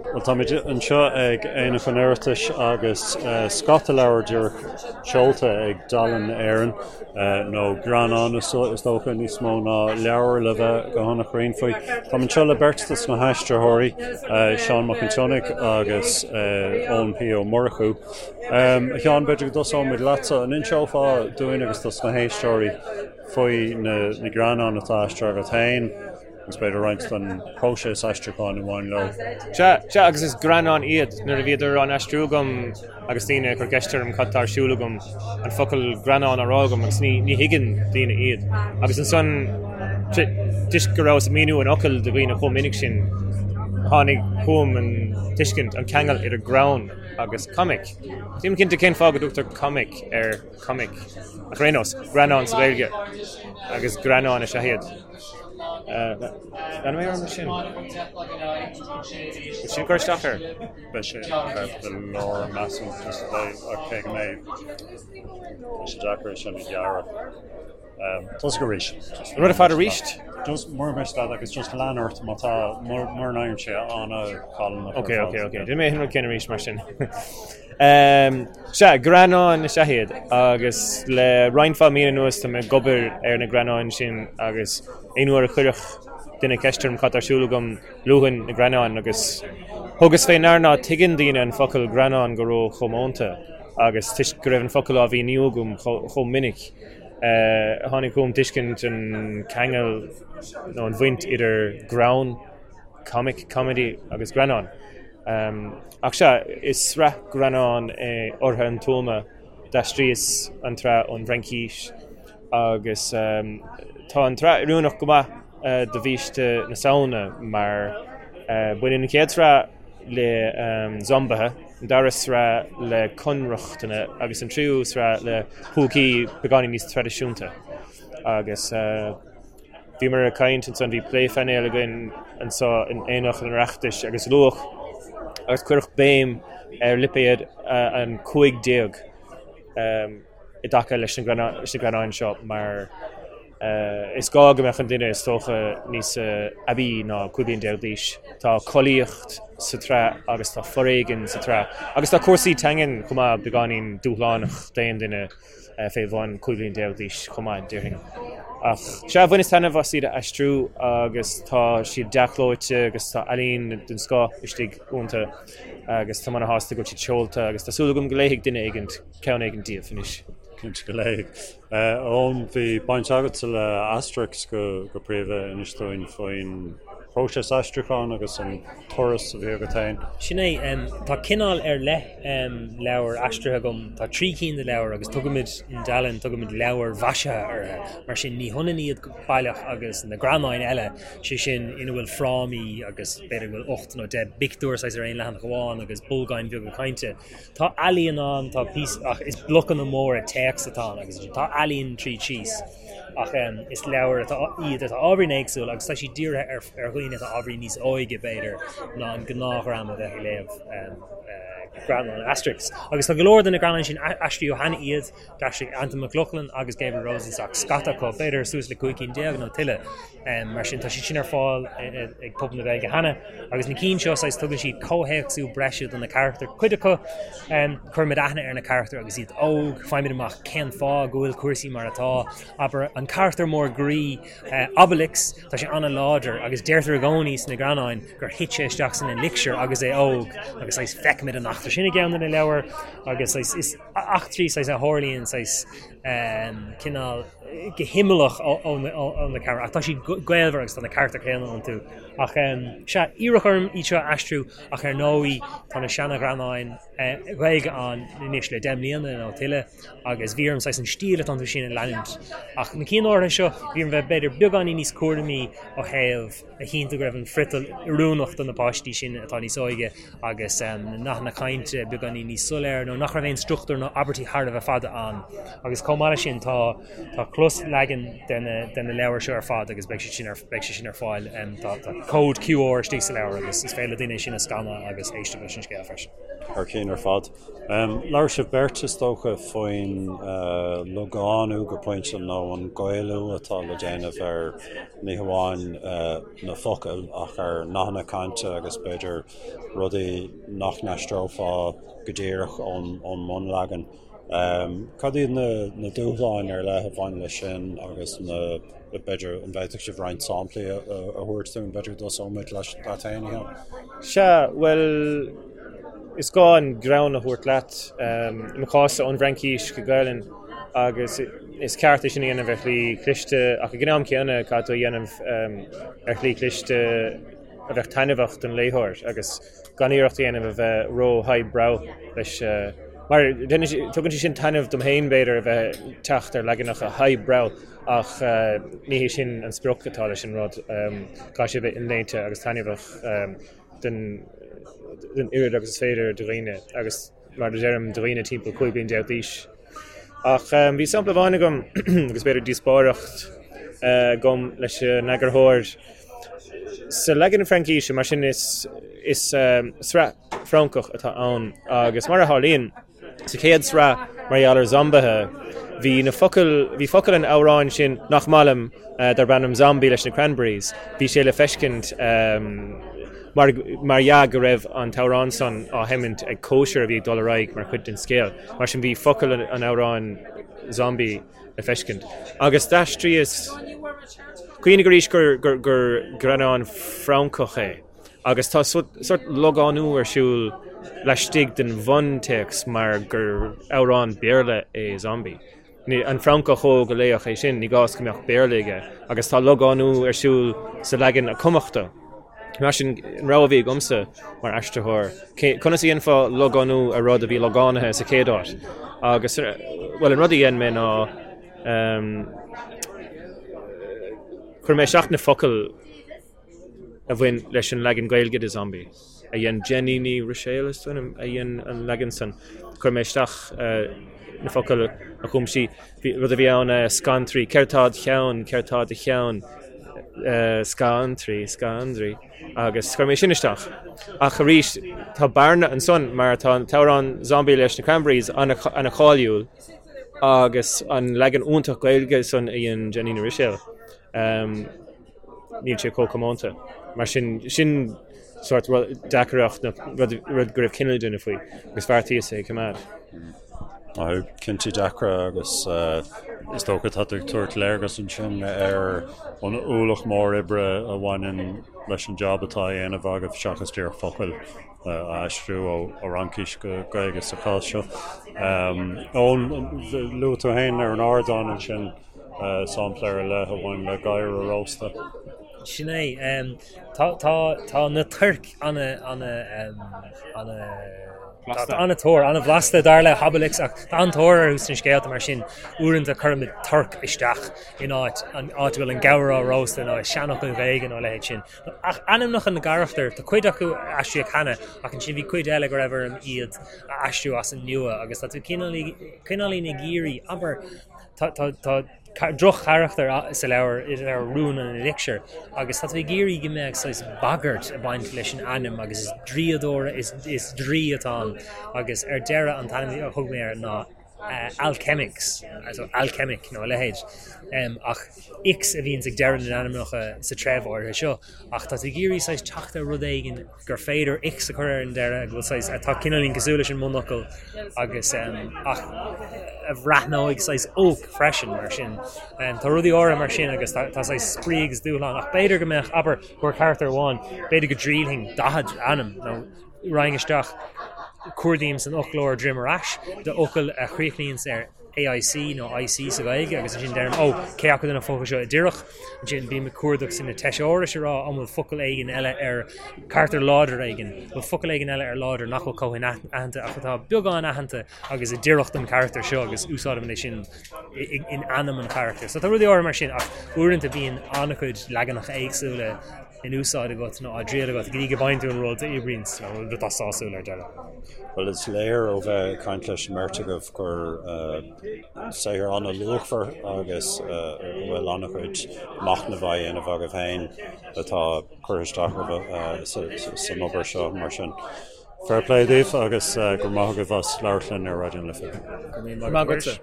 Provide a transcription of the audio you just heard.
Bhuel, táimid anseo ag Aonach an Oireachtais agus scata leabhar díreach seolta ag Dalen Éireann, nó greannáin is dócha, níos mó ná leabhair le bheith go han-chruinn faoi. Táim anseo le beirt dos na haistritheoirí, Seán Mac an tSionnaigh agus Eoin P. Ó Murchú. A Sheáin, b'fhéidir go dtosóimid leatsa. An inseofá dúinn agus dos na héisteoirí faoi na greannáin atá aistrithe agat féin? agus b'fhéidir roinnt den phróiseas aistriúcháin a bhain leo. Sea, sea, agus is greannáin iad. Nuair a bhíodar á n-aistriú agam agus daoine ag cur ceist orm cad tá ar siúl agam, an focal greannán á rá agam agus ní, ní thuigeann daoine iad. Agus ansan, toisc go rabhas ag míniú an fhocail do dhaoine chomh minic sin, tháinig chugam an tuiscint, an ceangal idir greann agus comic. Nílim cinnte cén fáth go dtugtar comic ar comic, ach ar aon nós, greannán sa Ghaeilge agus greannáin is ea iad. Leanfaidh mé orm leis sin. Bhfuil sin ag cur isteach air? Beidh sé ceart go leor, measaim, just ach cé go mbeidh tá sé deacair é sin a ghearradh. Tosaigh arís. An rud ar fad arís? Just mura miste leat agus just lean ort má tá mura n-éiríonn sé an-challánach. Ok, ok, ok. Déanfaidh mé an rud céanna arís mar sin. Sea, greannáin is ea iad agus le roinnt mhaith míonna anuas tá mé ag obair ar na greannáin sin agus aon uair a chuirfeadh duine ceist orm cad tá ar siúl agam, luafainn na greannáin agus thugas fé ndear ná tuigeann daoine an focal greannán go ró-chomónta agus toisc go raibh an focal á mhíniú agam chomh minic, tháinig chugam tuiscint an ceangal nó an bhaint idir greann, comic, comedy agus greannán. Ach sea, is sraith greannán é Ortha an Tuama, d'aistríos an tsraith ón bhFraincís agus tá an tsraith oiriúnach go maith do bhiaiste na Samhna mar baineann an chéad sraith le zombaithe, an dara sraith le conrochtana agus an tríú sraith le púcaí beagáinín níos traidisiúnta. Agus. Bhíomar ag caint ansan, bhí plé phainéil againn anso in Aonach an Oireachtais agus luadh agus cuireadh béim ar lipéad an 15 i dtaca leis na greannáin seo mar is gá go mbeadh an duine is dócha níos aibí ná 15 bliain d'aois. Tá collaíocht sa tsraith agus tá foréigean sa tsraith agus tá cúrsaí teangan chomh maith beagáinín dúshlánach d'aon duine. fé bhun 15 bliain d'aois chomh maith, déarfainn. Ach sea, bhaineas taitneamh as iad a aistriú agus tá siad dea-chlóite agus tá ealaín den scoth istigh iontu agus táim ana-shásta go bhfuil siad seolta agus tá súil agam go léifidh duine éigint ceann éigin díobh anois. Cinnte go léifidh. Eoin, bhí baint agatsa le Asterix go príomha, inis dúinn faoin bpróiseas aistriúcháin agus an turas a bhí agat féin. Sin é. Tá cineál ar leith leabhar aistrithe agam. Tá 3 cinn de leabhair agus tugaimid in Dalen, tugaimid leabhair mhaisithe orthu. Mar sin, ní hionann iad baileach agus na greannáin eile, sé sin ina bhfuil frámaí agus b'fhéidir go bhfuil 8 nó 10 bpictiúr saghas ar aon leathanach amháin agus bolgáin bheaga cainte. Tá ealaíon ann, tá píosa, ach is blocanna móra téacs atá ann agus tá ealaíon tríd síos. Ach is leabhair atá iad atá ábhairín éagsúil agus tá siad dírithe ar ar dhaoine atá ábhairín níos óige, b'fhéidir, ná an gnáthdhream a bheadh ag léamh greannáin Asterix. Agus tá go leor de na greannáin sin, aistríodh cheana iad, d'aistrigh Antain Mac Lochlainn agus Gabriel Rosenstock scata acu, b'fhéidir suas le 15 cinn nó tuilleadh. Mar sin tá siad sin ar fáil ag pobal na Gaeilge cheana. Agus na cinn seo, saghas, tugann siad comhthéacsú breise do na carachtair. Cuid acu, cuirimid aithne ar na carachtair agus iad óg, faighimid amach cén fáth go bhfuil cúrsaí mar atá. Abair, an carachtar mór groí, Obelix, tá sé an-láidir agus deirtear i gcónaí sna greannáin gur thit sé isteach san elixir agus é óg agus saghas feicimid an eachtra sin i gceann de na leabhair agus saghas is eachtraí saghas a tharlaíonn saghas cineál go himeallach ó na carachtair ach tá siad gaolmhar agus tá na carachtair chéanna iontu. Ach sea, iarradh orm iad seo a aistriú ach ar ndóigh tá na seana-ghreannáin Ghaeilge ann anois le 10 mbliana nó tuilleadh agus bhí orm saghas an stíl atá iontu sin a leanúint. Ach na cinn áirithe seo, bhí orm bheith b'fhéidir beagáinín níos cúramaí ó thaobh a chinntiú go raibh an friotal oiriúnach do na páistí sin atá níos óige agus na nathanna cainte beagáinín níos soiléire nó nach raibh aon struchtúr nó abairtí thar a bheith fada ann. Agus chomh maith leis sin tá tá cló. Closleagan de na de na leabhair seo ar fad agus beidh siad sin ar beidh sé sin ar fáil. Tá tá cód QR istigh sa leabhar agus is féidir le daoine é sin a scanadh agus éisteacht leis an scéal freisin. Thar cinn ar fad. Labhair sibh beirt, is dócha, faoin logánú go pointe nó an Gaelú atá le déanamh ar ní hamháin na focail ach ar nathanna cainte agus b'fhéidir rudaí nach n-aistreofá go díreach ón mbunleagan. Cad iad na dúshláin ar leith a bhain leis sin agus na, b'fhéidir, an bhféadfadh sibh roinnt samplaí a thabhairt dúinn, b'fhéidir go dtosóimid leat féin, a Sheáin? Sea, bhuel, is gá an greann a thabhairt leat, i mo chás-sa ón bhFraincís go Gaelainn, agus is ceart é sin a dhéanamh ar shlí chliste ach ag an am céanna caithfidh tú a dhéanamh ar shlí chliste a bheadh taitneamhach don léitheoir agus gan iarracht a dhéanamh a bheith ró-highbrow leis. Mar tugann sé sin taitneamh dom féin, b'fhéidir, a bheith ag teacht ar leaganacha highbrow ach ní hé sin an sprioc atá leis an rud. Caithfidh sé a bheith inléite agus taitneamhach don oiread agus is féidir de dhaoine agus, mar a deirim, do dhaoine timpeall 15 bliain d'aois. Ach bhí sampla amháin agam agus b'fhéidir díospóireacht agam leis an eagarthóir. Sa leagan Fraincíse, mar sin, is sraith Francach atá ann agus mar a tharlaíonn, sa chéad sraith mar gheall ar zombaithe, bhí na focail, bhí focail an amhráin sin nach maith liom darb ainm Zombie leis na Cranberries, bhí sé le feiscint mar mar dhea go raibh an t-amhrán san á sheimint ag cóisir a bhí ag dul ar aghaidh mar chuid den scéal. Mar sin bhí focail an amhráin Zombie le feiscint. Agus d'aistríos, cuimhnigh arís gur gur greannán Francach é agus tá sórt logánú ar siúl laistigh den bhuntéacs mar gur amhrán Béarla é Zombie. An Francach óg a léifeadh é sin, ní gá go mbeadh Béarla aige agus tá logánú ar siúl sa leagan a cumadh dó. Mar sin, an rogha a bhí agamsa mar aistritheoir, conas a dhéanfá logánú ar rud a bhí logánaithe sa chéad áit? Agus, bhuel, an rud a dhein mé ná, chuir mé isteach na focail a bhain leis an leagan Gaeilge de Zombie, a dhein Jenny Ní Ruiséil, is dóigh liom, a dhein an leagan san. Chuir mé isteach na focail a chum sí. Rud a bhí ann, scantraí, céard tá id cheann, céard tá i do cheann, scantraí, scandraí, agus chuir mé sin isteach. Ach arís, tá bearna ansan mar tá an t-amhrán Zombie leis na Cranberries ana-cháiliúil agus an leagan iontach Gaeilge san a dhein Jenny Ní Ruiséil. Níl sé chomh comónta. Mar sin, sin sórt deacracht nó rud go raibh cinneadh le déanamh faoi agus bheartaíos é a choimeád. Cinntí deacra agus is dócha tá tú ag tabhairt léargas ansin ar an ualach mór oibre a bhaineann leis an jab atá á dhéanamh agaibh seachas díreach focail a aistriú ó Fhraincis go Gaeilge sa chás seo. Eoin, luaigh tú féin ar an ardán ansin sampla ar leith a bhain le gadhar a róstadh. Sin é. Tá, tá, tá na toirc ana, ana, ana, Tá an-tóir, an-bhlasta dar le hObelix ach tá an-tóir orthu sna scéalta mar sin uaireanta cuirimid torc isteach in áit an áit a bhfuil an gabhar á róstadh nó i seanfhocail Ghaeilge nó a leithéid sin. Ach ainmneacha na gcarachtar, tá cuid acu aistrithe cheana ach ansin bhí cuid eile go raibh orm iad a aistriú as an nua agus tá tú cineáilín ag iarraidh, abair, tá, tá, tá, droch-charachtar sa leabhar, i leabhar Rún an Eilícséir, agus tá tú ag iarraidh go mbeadh saghas bagairt ag baint leis an ainm agus is draíodóir, is, is draoi atá ann agus ar deireadh an t-ainm a thug mé air ná Alchemix, so Alchemic nó a leithéid. Ach Ix a bhíonns ag deireadh na n-ainmneacha sa treibh áirithe seo ach tá tú ag iarraidh saghas teacht ar rud éigin gur féidir ix a chur ar an deireadh, go bhfuil saghas, atá cineáilín cosúil leis an mbunfhocal agus ach a bhreathnóidh saghas olc freisin mar sin. Tá rudaí áirithe mar sin agus tá saghas spraoi agus dúshlán ach b'fhéidir go mbeadh, abair, go bhfuil carachtar amháin, b'fhéidir go dtriailfinn 40 ainm nó raghainn isteach, cuardaím san fhoclóir droim ar ais d'fhocail a chríochnaíonns ar AIC nó IC sa Ghaeilge agus ansin deirim, ó, cé acu de na focail seo a d'oirfeadh? Ansin bím ag cuardach sna teiseárais a rá an bhfuil focal éigin eile ar carachtar láidir éigin, an bhfuil focal éigin eile ar láidir nach bhfuil chomh hinaitheanta ach atá beagán aitheanta agus a d'oirfeadh don charachtar seo agus úsáidim é sin in ainm an charachtair. So tá rudaí áirithe mar sin ach uaireanta bíonn an-chuid leaganacha éagsúla. in úsáid agat nó á dtriail agat go dtí go bhfaigheann tú an rud a oibríonns nó an rud atá sásúil ar deireadh. Bhuel, is léir ó bheith ag caint leis an mbeirt agaibh gur saothar an-luachmhar agus a bhfuil an-chuid machnaimh á dhéanamh agaibh féin atá curtha isteach agaibh san obair seo mar sin. Fair play daoibh agus go raibh maith agaibh as labhairt linn ar Raidió na Life. Go raibh maith agatsa.